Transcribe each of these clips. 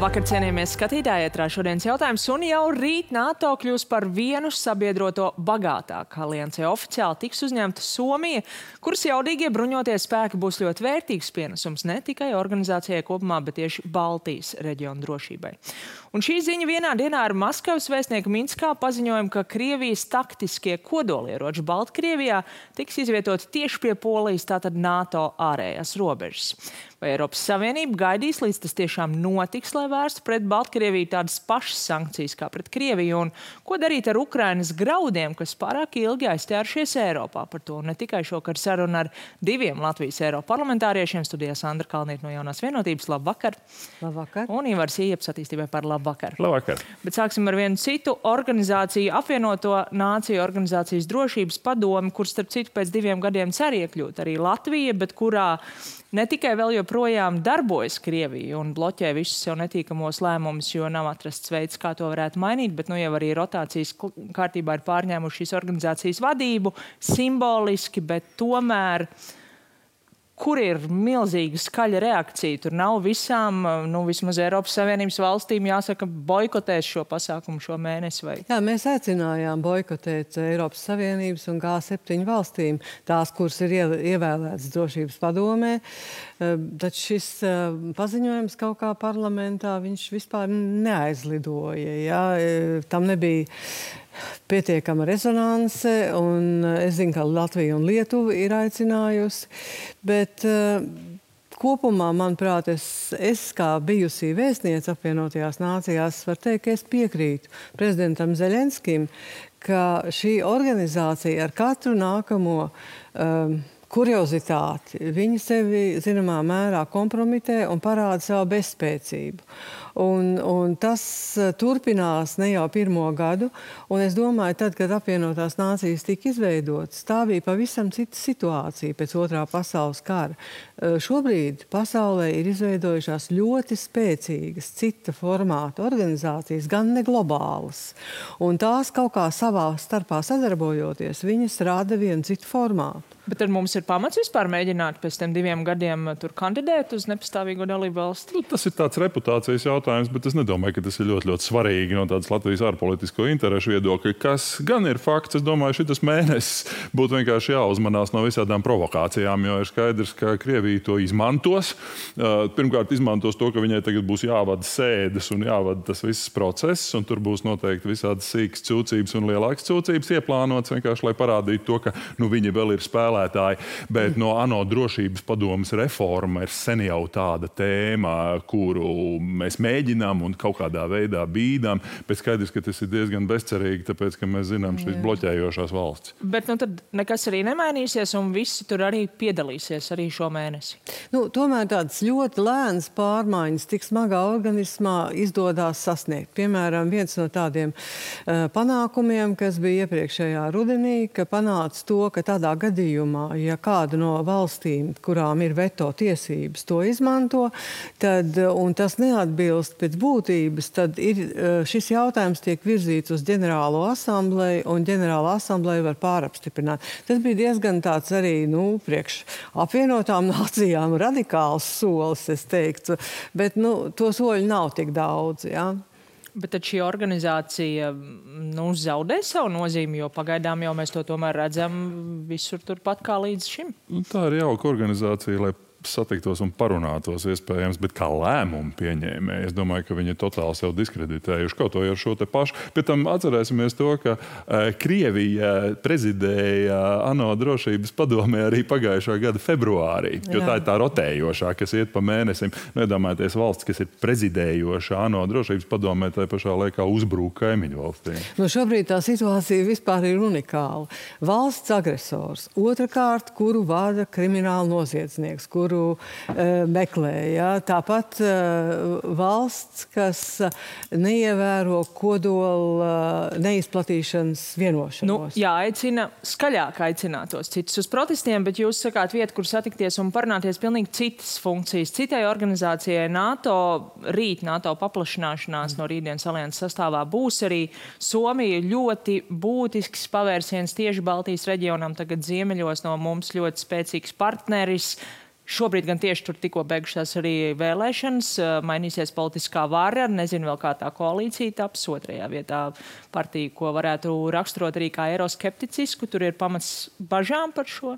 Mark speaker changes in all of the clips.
Speaker 1: Labvakar, cienījamies skatītāji, ētrā šodienas jautājums, un jau rīt NATO kļūs par vienu sabiedroto bagātāku aliansē. Oficiāli tiks uzņemta Somija, kuras jaudīgie bruņotie spēki būs ļoti vērtīgs pienesums ne tikai organizācijai kopumā, bet tieši Baltijas reģiona drošībai. Un šī ziņa vienā dienā ar Maskavas vēstnieku Minskā paziņojumu, ka Krievijas taktiskie kodolieroči Baltkrievijā tiks izvietoti tieši pie Polijas, tātad NATO ārējās robežas. Vai Eiropas Savienība gaidīs, līdz tas tiešām notiks, lai vērstu pret Baltkrieviju tādas pašas sankcijas kā pret Krieviju? Un ko darīt ar Ukrainas graudiem, kas pārāk ilgi aizķērušies Eiropā? Par to ne tikai šokar saruna ar diviem Latvijas Eiroparlamentāriešiem. Studijā Sandra Kalniete no Jaunās vienotības. Labvakar.
Speaker 2: Labvakar.
Speaker 1: Un Ivars Ieps attīstībai par labvakar.
Speaker 3: Labvakar.
Speaker 1: Bet sāksim ar vienu citu organizāciju, apvienoto nāciju organizācijas drošības padomi, kur starp citu pēc 2 gadiem cer iekļūt arī Latvija, bet kurā ne tikai vēl joprojām darbojas Krievija un bloķē visus sev netīkamos lēmumus, jo nav atrasts veids, kā to varētu mainīt, bet nu jau arī rotācijas kārtībā ir pārņēmuši šīs organizācijas vadību, simboliski, bet tomēr, kur ir milzīga skaļa reakcija? Tur nav visām, vismaz Eiropas Savienības valstīm jāsaka boikotēs šo pasākumu šo mēnesi vai?
Speaker 2: Jā, mēs aicinājām boikotēt Eiropas Savienības un G7 valstīm, tās, kuras ir ievēlētas drošības padomē. Tad šis paziņojums kaut kā parlamentā, viņš vispār neaizlidoja. Jā? Tam nebija pietiekama rezonanse, un es zinu, ka Latvija un Lietuva ir aicinājusi, bet kopumā, manuprāt, es kā bijusī vēstniece apvienotajās nācijās varu teikt, ka es piekrītu prezidentam Zeļenskim, ka šī organizācija ar katru nākamo kuriozitāti, viņi sevi zināmā mērā kompromitē un parāda savu bezspēcību. Un tas turpinās ne jau 1. gadu, un es domāju, tad, kad apvienotās nācijas tika izveidotas, tā bija pavisam cita situācija pēc 2. pasaules kara. Šobrīd pasaulē ir izveidojušās ļoti spēcīgas cita formāta organizācijas, gan ne globālas. Un tās kaut kā savā starpā sadarbojoties, viņas rada vienu citu formātu.
Speaker 1: Bet tad mums ir pamats vispār mēģināt pēc tiem 2 gadiem tur kandidēt uz nepastāvīgo dalību valsti?
Speaker 3: Tas ir tāds reputācijas jautājums, bet es nedomāju, ka tas ir ļoti, ļoti svarīgi no tādas Latvijas ārpolitisko interešu viedokļa. Kas gan ir fakts, es domāju, šitas mēnesis būtu vienkārši jāuzmanās no visādām provokācijām, jo ir skaidrs, ka Krievija to izmantos. Pirmkārt, izmantos to, ka viņai tagad būs jāvada sēdes un jāvada tas viss process, un tur būs noteikti visādas sīkas cūcības un lielākas cūcības ieplānotas, vienkārši, lai parādītu to, ka viņi vēl ir spēlētāji. Bet no ANO drošības padomes reforma ir sen jau tāda tēma, kuru mēs mēģinām un kaut kādā veidā bīdām, bet skaidrs, ka tas ir diezgan bezcerīgi, tāpēc, ka mēs zinām šīs bloķējošās valsts.
Speaker 1: Bet tad nekas arī nemainīsies un visi tur arī piedalīsies arī šo mēnesi?
Speaker 2: Tomēr tādas ļoti lēnas pārmaiņas tik smagā organismā izdodās sasniegt. Piemēram, viens no tādiem panākumiem, kas bija iepriekšējā rudenī, ka panāca to, ka tādā gadījumā, ja kāda no valstīm, kurām ir veto tiesības, to izmanto, un tas neatbilst pēc būtības, tad šis jautājums tiek virzīts uz ģenerālo asambleju, un ģenerāla asambleja var pārapstiprināt. Tas bija diezgan tāds arī, priekš apvienotām nācijām radikāls solis, es teiktu, bet to soļu nav tik daudz, jā.
Speaker 1: Bet tad šī organizācija zaudē savu nozīmi, jo pagaidām jau mēs to tomēr redzam visur turpat kā līdz šim.
Speaker 3: Tā ir jauka organizācija, lai satiktos un parunātos iespējams, bet kā lēmumu pieņēmēji. Es domāju, ka viņi totāli sev diskreditējuši kaut to ar šo te pašu. Pēc tam atcerēsimies to, ka Krievija prezidēja ANO drošības padomē arī pagājušā gada februārī, jo tā ir tā rotējošā, kas iet pa mēnesim. Nedomājieties valsts, kas ir prezidējoša ANO drošības padomē, tai pašā laikā uzbrūk kaimiņu valstīm.
Speaker 2: Šobrīd tā situācija vispār ir unikāla. Valsts agresors, otrkārt, kuru vada krimināla noziedznieks, kuru meklē. Ja? Tāpat valsts, kas neievēro kodola neizplatīšanas vienošanos.
Speaker 1: Jāaicina skaļāk aicinātos citus uz protestiem, bet jūs sakāt vietu, kur satikties un parunāties pilnīgi citas funkcijas. Citai organizācijai NATO paplašināšanās no rītdienas alianses sastāvā būs arī Somija ļoti būtisks pavērsiens tieši Baltijas reģionam, tagad ziemeļos no mums ļoti spēcīgs partneris. Šobrīd gan tieši tur tikko beigušās arī vēlēšanas, mainīsies politiskā vara, nezinu vēl kā tā koalīcija taps, otrajā vietā partija, ko varētu raksturot arī kā eiroskepticisku, tur ir pamats bažām par šo?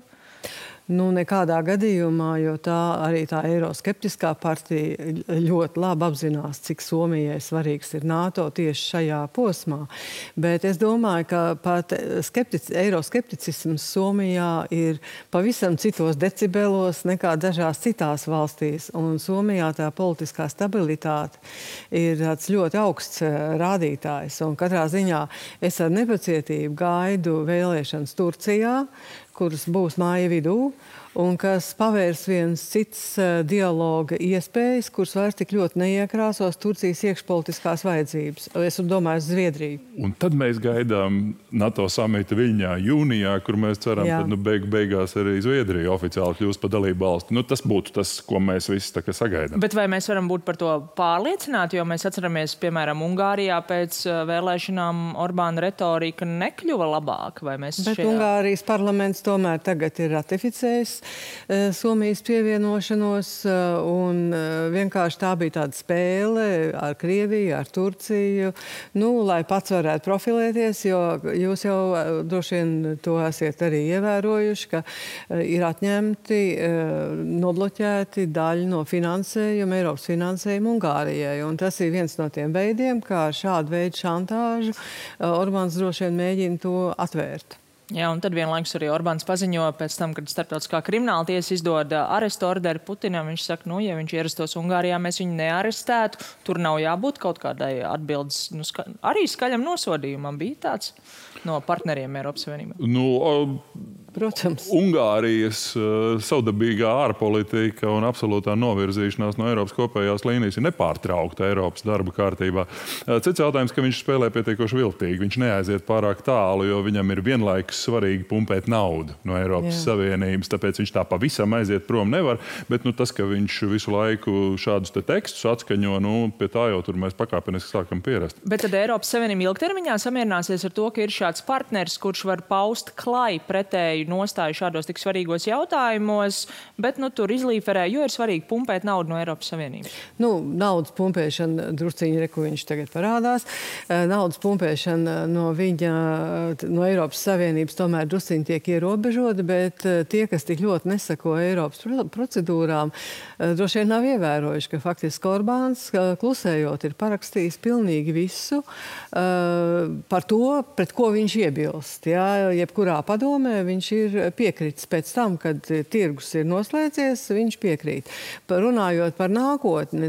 Speaker 2: Nu, nekādā gadījumā, jo arī tā eiroskeptiskā partija ļoti labi apzinās, cik Somijai svarīgs ir NATO tieši šajā posmā. Bet es domāju, ka pat eiroskepticisms Somijā ir pavisam citos decibelos nekā dažās citās valstīs. Un Somijā tā politiskā stabilitāte ir tāds ļoti augsts rādītājs. Un katrā ziņā es ar nepacietību gaidu vēlēšanas Turcijā, kuras būs māja vidū, un kas pavērs viens cits dialoga iespējas, kuras vairs tik ļoti neiekrāsos Turcijas iekšpolitiskās vajadzības. Es domāju, Zviedriju.
Speaker 3: Un tad mēs gaidām NATO samita Viļņā jūnijā, kur mēs ceram, ka beigās arī Zviedrija oficiāli kļūs par dalību valsti. Nu, tas būtu tas, ko mēs visi tā kā sagaidām.
Speaker 1: Bet vai mēs varam būt par to pārliecināti, jo mēs atceramies, piemēram, Ungārijā pēc vēlēšanām Orbāna retorika nekļuva labāk?
Speaker 2: Bet Ungārijas parlaments tomēr tagad ir ratificējis Somijas pievienošanos, un vienkārši tā bija tāda spēle ar Krieviju, ar Turciju, lai pats varētu profilēties, jo jūs jau droši vien to esat arī ievērojuši, ka ir atņemti, nobloķēti daļa no finansējuma, Eiropas finansējuma Ungārijai, un tas ir viens no tiem veidiem, kā šādu veidu šantāžu Orbāns droši vien mēģina to atvērt.
Speaker 1: Jā, un tad vienlaikus arī Orbāns paziņo pēc tam, kad starptautiskā krimināla tiesa izdod arestu orderi Putinam. Viņš saka, ja viņš ierastos Ungārijā, mēs viņu nearestētu. Tur nav jābūt kaut kādai atbildes, arī skaļam nosodījumam bija tāds no partneriem Eiropas Savienībā.
Speaker 2: Protams.
Speaker 3: Ungārijas savdabīgā ārpolitika un absolūtā novirzīšanās no Eiropas kopējās līnijas ir nepārtraukta Eiropas darba kārtībā. Cits jautājums, ka viņš spēlē pietiekoši viltīgi. Viņš neaiziet pārāk tālu, jo viņam ir vienlaikus svarīgi pumpēt naudu no Eiropas Savienības, tāpēc viņš tā pavisam aiziet prom nevar. Bet tas, ka viņš visu laiku šādus te tekstus atskaņo, pie tā jau tur mēs pakāpeniski sākam pierast.
Speaker 1: Bet tad Eiropas Savienība ilgtermiņā samierināsies ar to, ka ir šāds partners, kurš var paust klai pretēju nostāju šādos tik svarīgos jautājumos, bet tur izlīferē, jo ir svarīgi pumpēt naudu no Eiropas Savienības.
Speaker 2: Naudas pumpēšana drusciņi, ko viņš tagad parādās. Naudas pumpēšana no Eiropas Savienības tomēr drusciņi tiek ierobežota, bet tie, kas tik ļoti nesako Eiropas procedūrām, droši vien nav ievērojuši, ka faktiski Orbāns klusējot ir parakstījis pilnīgi visu par to, pret ko viņš iebilst. Jebkurā padomē viņš ir piekritis pēc tam, kad tirgus ir noslēdzies, viņš piekrīt. Runājot par nākotni,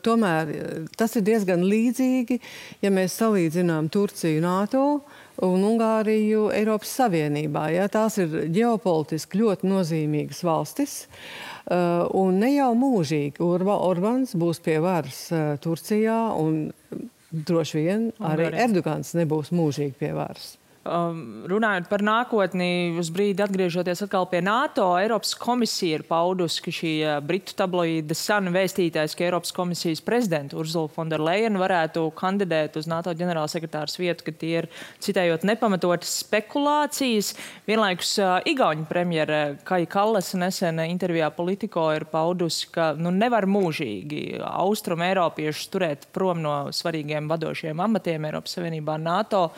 Speaker 2: tomēr tas ir diezgan līdzīgi, ja mēs salīdzinām Turciju NATO un Ungāriju Eiropas Savienībā. Tās ir ģeopolitiski ļoti nozīmīgas valstis, un ne jau mūžīgi Orbāns būs pie varas Turcijā, un droši vien arī Erdogans nebūs mūžīgi pie varas.
Speaker 1: Runājot par nākotni, uz brīdi atgriežoties atkal pie NATO, Eiropas komisija ir paudusi, ka šī britu tabloīda Sun vēstītājs, ka Eiropas komisijas prezidenta Ursula von der Leyen varētu kandidēt uz NATO ģenerālsekretāras vietu, ka tie ir, citējot, nepamatotas spekulācijas. Vienlaikus Igauņu premjere Kaja Kallasa nesen intervijā Politico ir paudusi, ka nevar mūžīgi austrumu eiropiešus turēt prom no svarīgiem vadošiem amatiem Eiropas Savienībā NATO.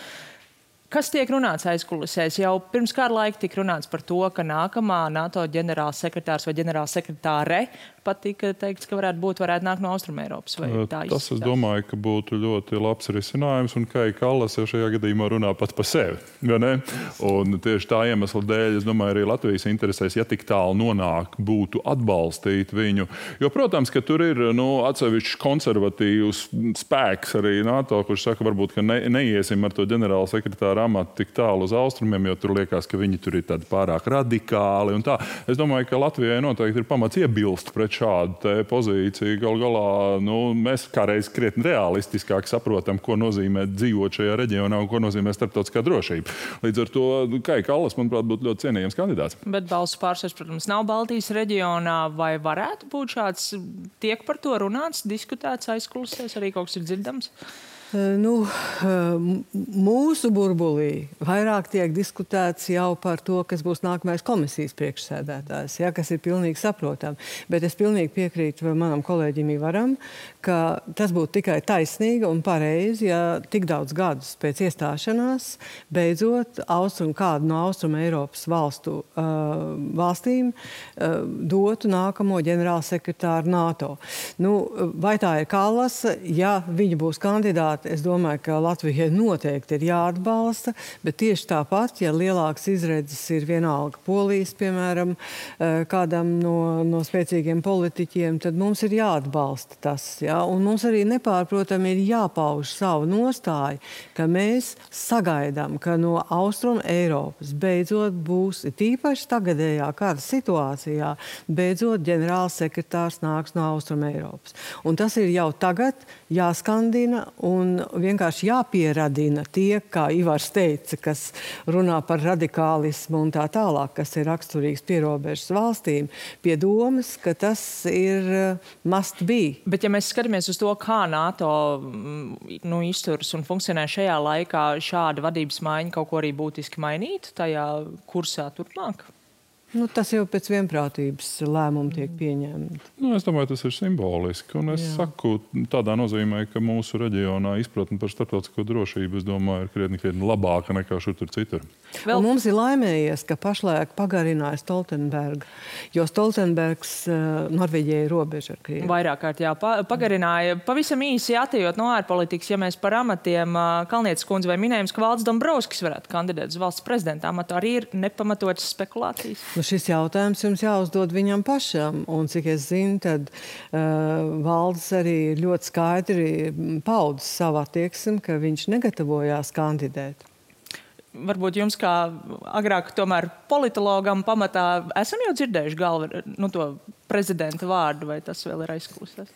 Speaker 1: Kas tiek runāts aizkulisēs? Jau pirms kāda laika tika runāts par to, ka nākamā NATO ģenerālsekretārs vai ģenerālsekretāre pat tika teikts, ka varētu nākt no Austrumeiropas.
Speaker 3: Tas, es domāju, ka būtu ļoti labs risinājums, un Kaja Kallasa jau šajā gadījumā runā pat par sevi. Un tieši tā iemesla dēļ, es domāju, arī Latvijas interesēs, ja tik tālu nonāk, būtu atbalstīt viņu. Jo, protams, ka tur ir atsevišķs konservatīvs spēks arī NATO, kurš saka, varbūt, ka neiesim ar to ģenerālsekretāru amatu tik tālu uz austrumiem, jo tur liekas, ka viņi tur ir tādi pārāk radikāli un tā. Es domāju, ka Latvijai noteikti ir pamats iebilst pret šādu pozīciju. Galu galā mēs kādreiz krietni realistiskāk saprotam, ko nozīmē dzīvot šajā reģionā un ko nozīmē starptautiskā drošība. Līdz ar to Kaja Kallas, manuprāt, būtu ļoti cienījams kandidāts.
Speaker 1: Bet balsu pārsvars, protams, nav Baltijas reģionā. Vai varētu būt šāds, tiek par to runāts, diskutēts aizkulisēs, arī kaut kas ir dzirdams?
Speaker 2: Mūsu burbulī vairāk tiek diskutēts jau par to, kas būs nākamais komisijas priekšsēdētājs, ja, kas ir pilnīgi saprotami. Bet es pilnīgi piekrītu manam kolēģim Ivaram, ka tas būtu tikai taisnīgi un pareizi, ja tik daudz gadus pēc iestāšanās beidzot kādu no Austrum Eiropas valstīm dotu nākamo ģenerālsekretāru NATO. Vai tā ir Kallasa? Ja viņa būs kandidāti, es domāju, ka Latvijai noteikti ir jāatbalsta, bet tieši tāpat, ja lielāks izredzes ir vienalga Polijas, piemēram, kādam no spēcīgiem politiķiem, tad mums ir jāatbalsta tas. Ja? Un mums arī nepārprotami ir jāpauž savu nostāju, ka mēs sagaidām, ka no Austrum Eiropas beidzot būs, tīpaši tagadējā kara situācijā, beidzot ģenerālsekretārs nāks no Austrum Eiropas. Un tas ir jau tagad jāskandina un vienkārši jāpieradina tie, kā Ivars teica, kas runā par radikālismu un tā tālāk, kas ir raksturīgs pierobežas valstīm, pie domas, ka tas ir must be.
Speaker 1: Bet ja mēs skatāmies uz to, kā NATO izturas un funkcionē šajā laikā, šāda vadības maiņa kaut ko arī būtiski mainītu tajā kursā turpmāk?
Speaker 2: Tas jau pēc vienprātības lēmumu tiek pieņemti.
Speaker 3: Es domāju, tas ir simboliski. Un es saku tādā nozīmē, ka mūsu reģionā izpratne par starptautisko drošību, es domāju, ir krietni labāka nekā šur tur citur.
Speaker 2: Un mums ir laimējies, ka pašlaik pagarināja Stoltenberga, jo Stoltenbergs Norvēģijai ir robeža ar Krievu.
Speaker 1: Vairāk kārt pagarināja. Pavisam īsi atejot no ārpolitikas, ja mēs par amatiem, Kalnietes kundze vai minējums, ka Valdis Dombrovskis varētu kandidēt uz valsts prezidenta amatu, arī ir nepamatotas spekulācijas?
Speaker 2: Šis jautājums jums jāuzdod viņam pašam, un cik es zinu, tad Valdis arī ļoti skaidri paudis savu attieksmi, ka viņš negatavojās kandidēt.
Speaker 1: Varbūt jums kā agrāk tomēr politologam pamatā esam jau dzirdējuši to prezidenta vārdu, vai tas vēl ir aizklausās?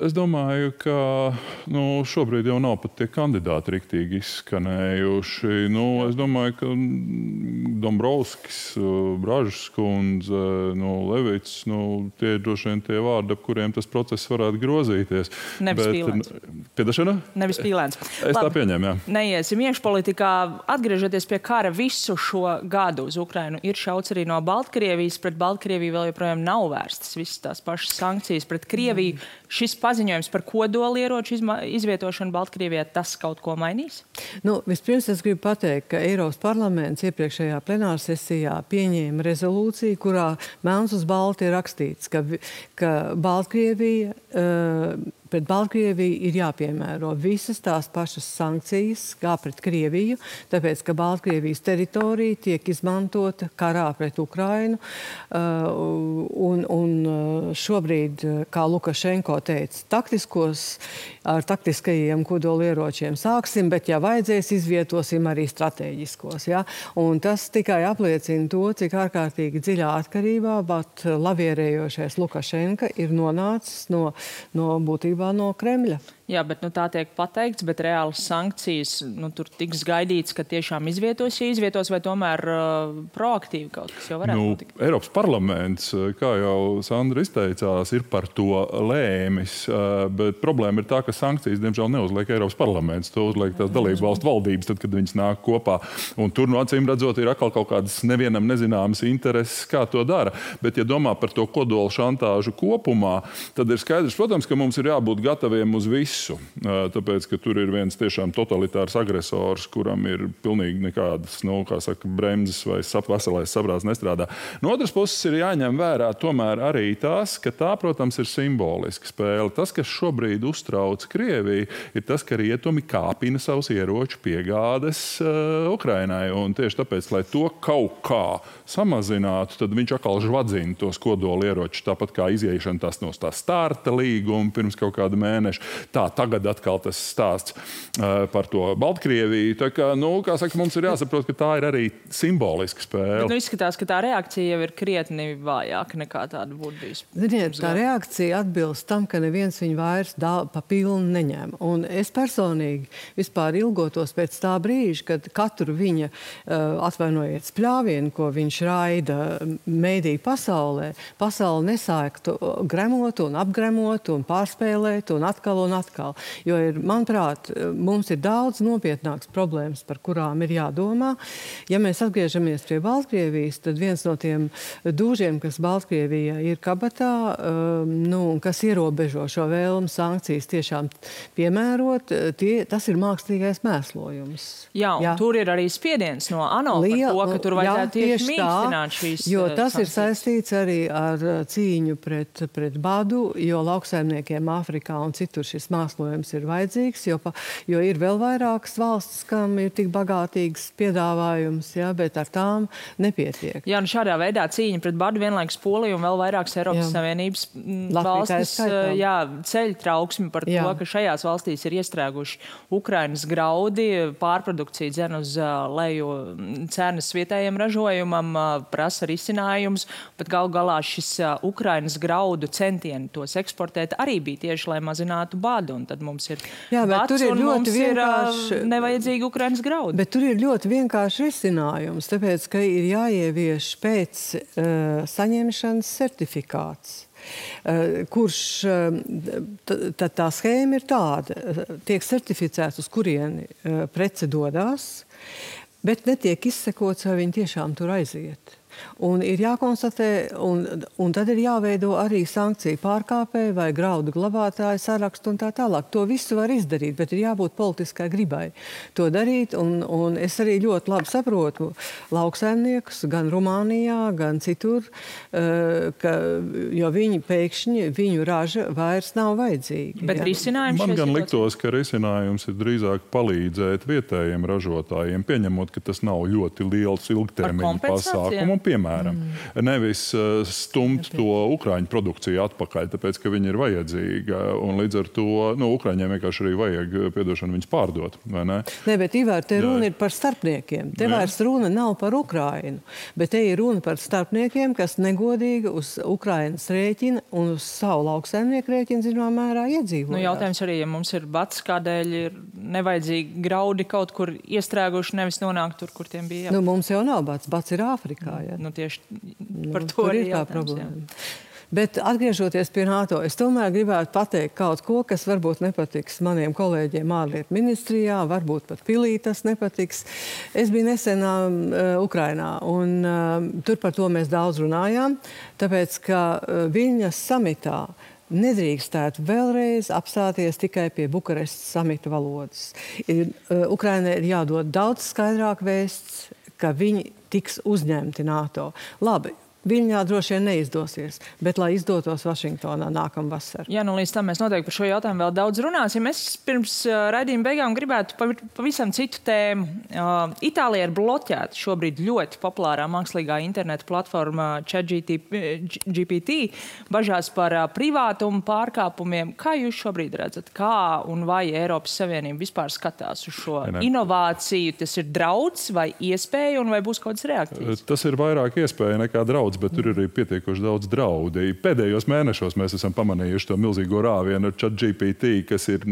Speaker 3: Es domāju, ka šobrīd jau nav pat tie kandidāti riktīgi izskanējuši. Es domāju, ka Dombrovskis, Bražas kundze, Levits, tie ir droši vien tie vārdi, ap kuriem tas process varētu grozīties.
Speaker 1: Nevis Pīlēns.
Speaker 3: Piedašana?
Speaker 1: Nevis Pīlēns.
Speaker 3: Es tā pieņēmu, jā.
Speaker 1: Neiesim iekšpolitikā. Atgriežoties pie kara visu šo gadu uz Ukrainu, ir šauts arī no Baltkrievijas. Pret Baltkrieviju vēl joprojām nav vērstas visas tās pašas sankcijas pret Krieviju. Šis paziņojums par kodolieroču izvietošanu Baltkrievijā, tas kaut ko mainīs?
Speaker 2: Vispirms es gribu pateikt, ka Eiropas parlaments iepriekšējā plenārsesijā pieņēma rezolūciju, kurā melns uz balti ir rakstīts, ka Baltkrievija pret Baltkrieviju ir jāpiemēro visas tās pašas sankcijas kā pret Krieviju, tāpēc, ka Baltkrievijas teritorija tiek izmantota karā pret Ukrainu. Un šobrīd, kā Lukašenko teica, ar taktiskajiem kodolieročiem sāksim, bet, ja vajadzēs, izvietosim arī strateģiskos. Ja? Un tas tikai apliecina to, cik ārkārtīgi dziļā atkarībā, bet lavierējošais Lukašenka ir nonācis no būtībā no Kremļa.
Speaker 1: Jā, bet tā tiek pateikts, bet reālas sankcijas tur tiks gaidīts, ka tiešām izvietos, vai tomēr proaktīvi kaut kas jau varētu notikt?
Speaker 3: Eiropas parlaments, kā jau Sandra izteicās, ir par to lēmis, bet problēma ir tā, ka sankcijas, diemžēl, neuzliek Eiropas parlaments. To uzliek tās dalību valstu valdības, tad, kad viņas nāk kopā. Un tur, acīm redzot, ir atkal kaut kādas nevienam nezināmas intereses, kā to dara. Bet, ja domā par to kodolu šantāžu kopumā, tad ir skaidrs, protams, ka mums ir jābūt gataviem uz visu. Tāpēc, ka tur ir viens tiešām totalitārs agresors, kuram ir pilnīgi nekādas, bremzes vai veselais saprāts nestrādā. No otras puses ir jāņem vērā tomēr arī tas, ka tā, protams, ir simboliska spēle. Tas, kas šobrīd uztrauc Krieviju, ir tas, ka rietumi kāpina savus ieroču piegādes Ukrainai. Un tieši tāpēc, lai to kaut kā samazinātu, tad viņš atkal žvadzina tos kodolieročus, tāpat kā iziešana no tā starta līguma pirms kaut kāda mēneša. Tagad atkal tas stāsts par to Baltkrieviju. Tā kā, kā saka, mums ir jāsaprot, ka tā ir arī simboliska spēle.
Speaker 1: Bet izskatās, ka tā reakcija jau ir krietni vājāka nekā tāda būtu bijusi.
Speaker 2: Ziniet, tā reakcija atbilst tam, ka neviens viņu vairs pa pilnu neņem. Un es personīgi vispār ilgotos pēc tā brīža, kad katru viņa, atvainojiet, spļāvienu, ko viņš raida mēdī pasaulē, pasauli nesāktu gremot un apgremot un pārspēlēt un atkal. atkal. Jo manuprāt, mums ir daudz nopietnāks problēmas, par kurām ir jādomā. Ja mēs atgriežamies pie Baltkrievijas, tad viens no tiem dūžiem, kas Baltkrievijā ir kabatā, kas ierobežo šo vēlmu sankcijas tiešām piemērot, tas ir mākslīgais mēslojums.
Speaker 1: Jā, un tur ir arī spiediens no ANO par to, ka tur vajadzētu tieši mīkstināt šīs
Speaker 2: jo tas ir saistīts arī ar cīņu pret badu, jo lauksaimniekiem Āfrikā un citur šis mēslojums ir vajadzīgs, jo ir vēl vairākas valstis, kam ir tik bagātīgs piedāvājums, bet ar tām nepietiek.
Speaker 1: Jā, un šādā veidā cīņa pret badu vienlaikus Polija un vēl vairākas Eiropas Savienības valstis ceļ trauksmi par to, ka šajās valstīs ir iestrēguši Ukrainas graudi, pārprodukcija dzen uz leju cenas vietējiem ražojumam, prasa risinājums, bet galu galā šis Ukrainas graudu centieni tos eksportēt arī bija tieši, lai mazinātu badu, un tad mums ir bats un mums ir nevajadzīgi Ukrainas graudi.
Speaker 2: Bet tur ir ļoti vienkārši risinājums, tāpēc, ka ir jāievieš pēc saņemšanas certifikāts. Kurš tā schēma ir tāda, tiek certificēts, uz kurieni prece dodās, bet netiek izsekots, vai viņi tiešām tur aiziet. Un ir jākonstatē, un tad ir jāveido arī sankciju pārkāpēji vai graudu glabātāju sarakstu un tā tālāk. To visu var izdarīt, bet ir jābūt politiskai gribai to darīt. Un es arī ļoti labi saprotu lauksaimniekus gan Rumānijā, gan citur, jo viņu raža vairs nav vajadzīga.
Speaker 1: Bet risinājums
Speaker 3: man gan liktos, ka risinājums ir drīzāk palīdzēt vietējiem ražotājiem, pieņemot, ka tas nav ļoti liels ilgtermiņa pasākumu. Piemēram, nevis stumt to ukraiņu produkciju atpakaļ, tāpēc, ka viņi ir vajadzīga. Un līdz ar to, ukraiņiem vienkārši arī vajag, viņus pārdot, vai ne?
Speaker 2: Nē, bet Ivar, te runa ir par starpniekiem. Te vairs runa nav par Ukrainu, bet te ir runa par starpniekiem, kas negodīgi uz Ukrainas rēķina un uz savu lauksaimnieku rēķina, zināmā mērā, iedzīvojās.
Speaker 1: Jautājums arī, ja mums ir bats, kādēļ ir nevajadzīgi graudi kaut kur iestrēguši, nevis nonākt tur, kur tiem bija jābūt.
Speaker 2: Mums jau nav bats. Bats ir Āfrikā.
Speaker 1: Tieši par to arī
Speaker 2: ir tā problēma. Bet atgriežoties pie NATO, es tomēr gribētu pateikt kaut ko, kas varbūt nepatiks maniem kolēģiem ārlietu ministrijā, varbūt pat pilī tas nepatiks. Es biju nesen Ukrainā, un tur par to mēs daudz runājām, tāpēc, ka Viļņas samitā nedrīkstētu vēlreiz apstāties tikai pie Bukarestas samita valodas. Ukrainai ir jādod daudz skaidrāk vēsts, ka viņi tiks uzņemti NATO. Labi, Viļņā droši vien neizdosies, bet lai izdotos Vašingtonā nākamvasar.
Speaker 1: Jā, līdz tam mēs noteikti par šo jautājumu vēl daudz runāsim. Es pirms raidījuma beigām gribētu pavisam citu tēmu. Itālijā ir bloķēta šobrīd ļoti populārā mākslīgā interneta platforma ChatGPT, bažās par privātumu pārkāpumiem. Kā jūs šobrīd redzat, kā un vai Eiropas Savienība vispār skatās uz šo inovāciju? Tas ir drauds vai iespēja un vai būs kaut kādas reakcijas?
Speaker 3: Tas ir vairāk iespēja nekā drauds. Bet tur ir arī pietiekoši daudz draudi. Pēdējos mēnešos mēs esam pamanījuši to milzīgo rāvienu ar ChatGPT, kas ir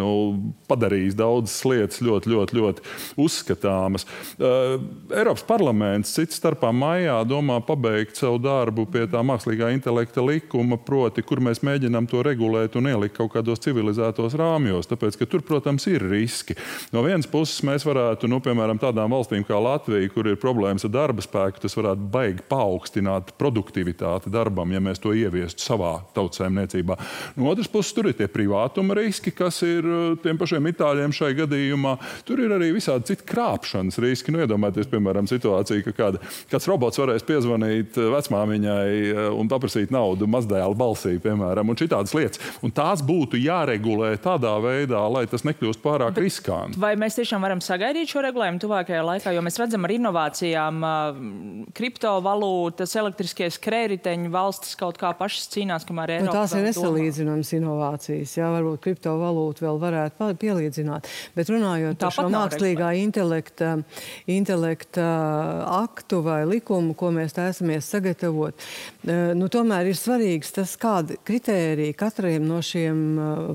Speaker 3: padarījis daudzas lietas ļoti uzskatāmas. Eiropas parlaments cits starpā maijā domā pabeigt savu darbu pie tā mākslīgā intelekta likuma, proti, kur mēs mēģinām to regulēt un ielikt kaut kādos civilizētos rāmjos, tāpēc, ka tur, protams, ir riski. No vienas puses mēs varētu, piemēram, tādām valstīm kā Latvija, kur ir problēmas ar darba spēku, tas varētu baigi paaugstināt produktivitāti darbam, ja mēs to ieviestu savā tautsaimniecībā. No otras puses, tur ir tie privātuma riski, kas ir tiem pašiem itāļiem šai gadījumā. Tur ir arī visādi citi krāpšanas riski. Iedomājieties, piemēram, situāciju, ka kāds robots varēs piezvanīt vecmāmiņai un paprasīt naudu mazdēla balsī, piemēram, un šitādas lietas. Un tās būtu jāregulē tādā veidā, lai tas nekļūst pārāk riskanti.
Speaker 1: Vai mēs tiešām varam sagaidīt šo regulējumu tuvākajā laikā, jo mēs redzam ar inovācijām, kriptovalūtas, elektriskie skrējriteņu valstis kaut kā pašas cīnās, kamēr Eiropa
Speaker 2: tās ir nesalīdzināmas inovācijas. Jā, varbūt kriptovalūtu vēl varētu pielīdzināt. Bet runājot par šo mākslīgā intelekta aktu vai likumu, ko mēs taisamies sagatavot, tomēr ir svarīgs tas, kāda kritērija katram no šiem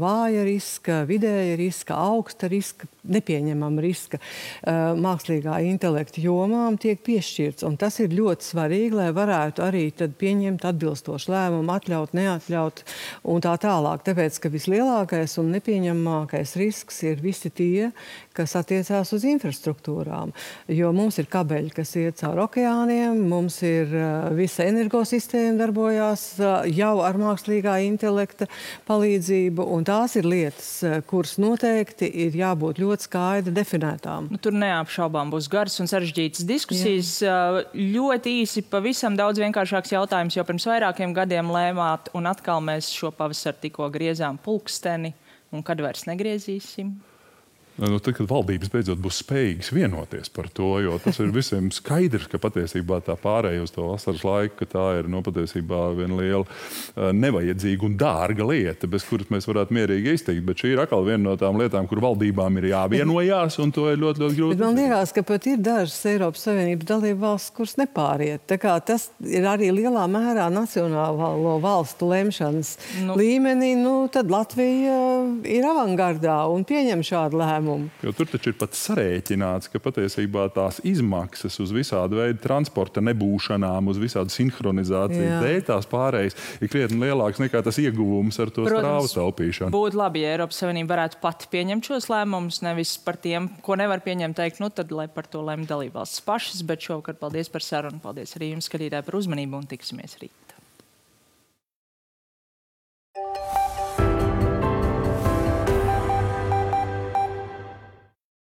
Speaker 2: vāja riska, vidēja riska, augsta riska, nepieņemama riska mākslīgā intelekta jomām tiek piešķirts. Un tas ir ļoti svarīgi, lai varētu arī arī tad pieņemt atbilstošu lēmumu, atļaut, neatļaut un tā tālāk. Tāpēc, ka vislielākais un nepieņemamākais risks ir visi tie, kas attiecās uz infrastruktūrām. Jo mums ir kabeļi, kas iet caur okeāniem, mums ir visa energosistēma darbojās jau ar mākslīgā intelekta palīdzību, un tās ir lietas, kuras noteikti ir jābūt ļoti skaidri definētām.
Speaker 1: Tur neapšaubām būs garas un sarežģītas diskusijas. Ļoti īsi, pavisam daudz vienkāršāks jautājums, jo pirms vairākiem gadiem lēmāt, un atkal mēs šo pavasaru tikko griezām pulksteni, un kad vairs negriezīsim?
Speaker 3: Tad, kad valdības beidzot būs spējīgas vienoties par to, jo tas ir visiem skaidrs, ka patiesībā tā pārēja uz to vasaras laiku, ka tā ir patiesībā viena liela nevajadzīga un dārga lieta, bez kuras mēs varētu mierīgi izteikt. Bet šī ir atkal viena no tām lietām, kur valdībām ir jāvienojās, un to ir ļoti, ļoti grūti.
Speaker 2: Bet man liekas, ka pat ir dažas Eiropas Savienības dalība valsts, kuras nepāriet. Tā kā tas ir arī lielā mērā nacionālo valstu lemšanas līmenī, tad Latvija ir avangardā un pieņem šādu lēmumu.
Speaker 3: Jo tur taču ir pat sarēķināts, ka patiesībā tās izmaksas uz visādu veidu transporta nebūšanām, uz visādu sinhronizāciju dēļ tās pārējas ir krietni lielāks nekā tas ieguvums ar to strāvu taupīšanu.
Speaker 1: Būtu labi, ja Eiropas Savienība varētu pati pieņemt šos lēmumus, nevis par tiem, ko nevar pieņemt, teikt, tad lai par to lemj dalībvalstis pašas, bet šovakar paldies par sarunu, paldies arī jums, skatītāji, par uzmanību un tiksimies rīt.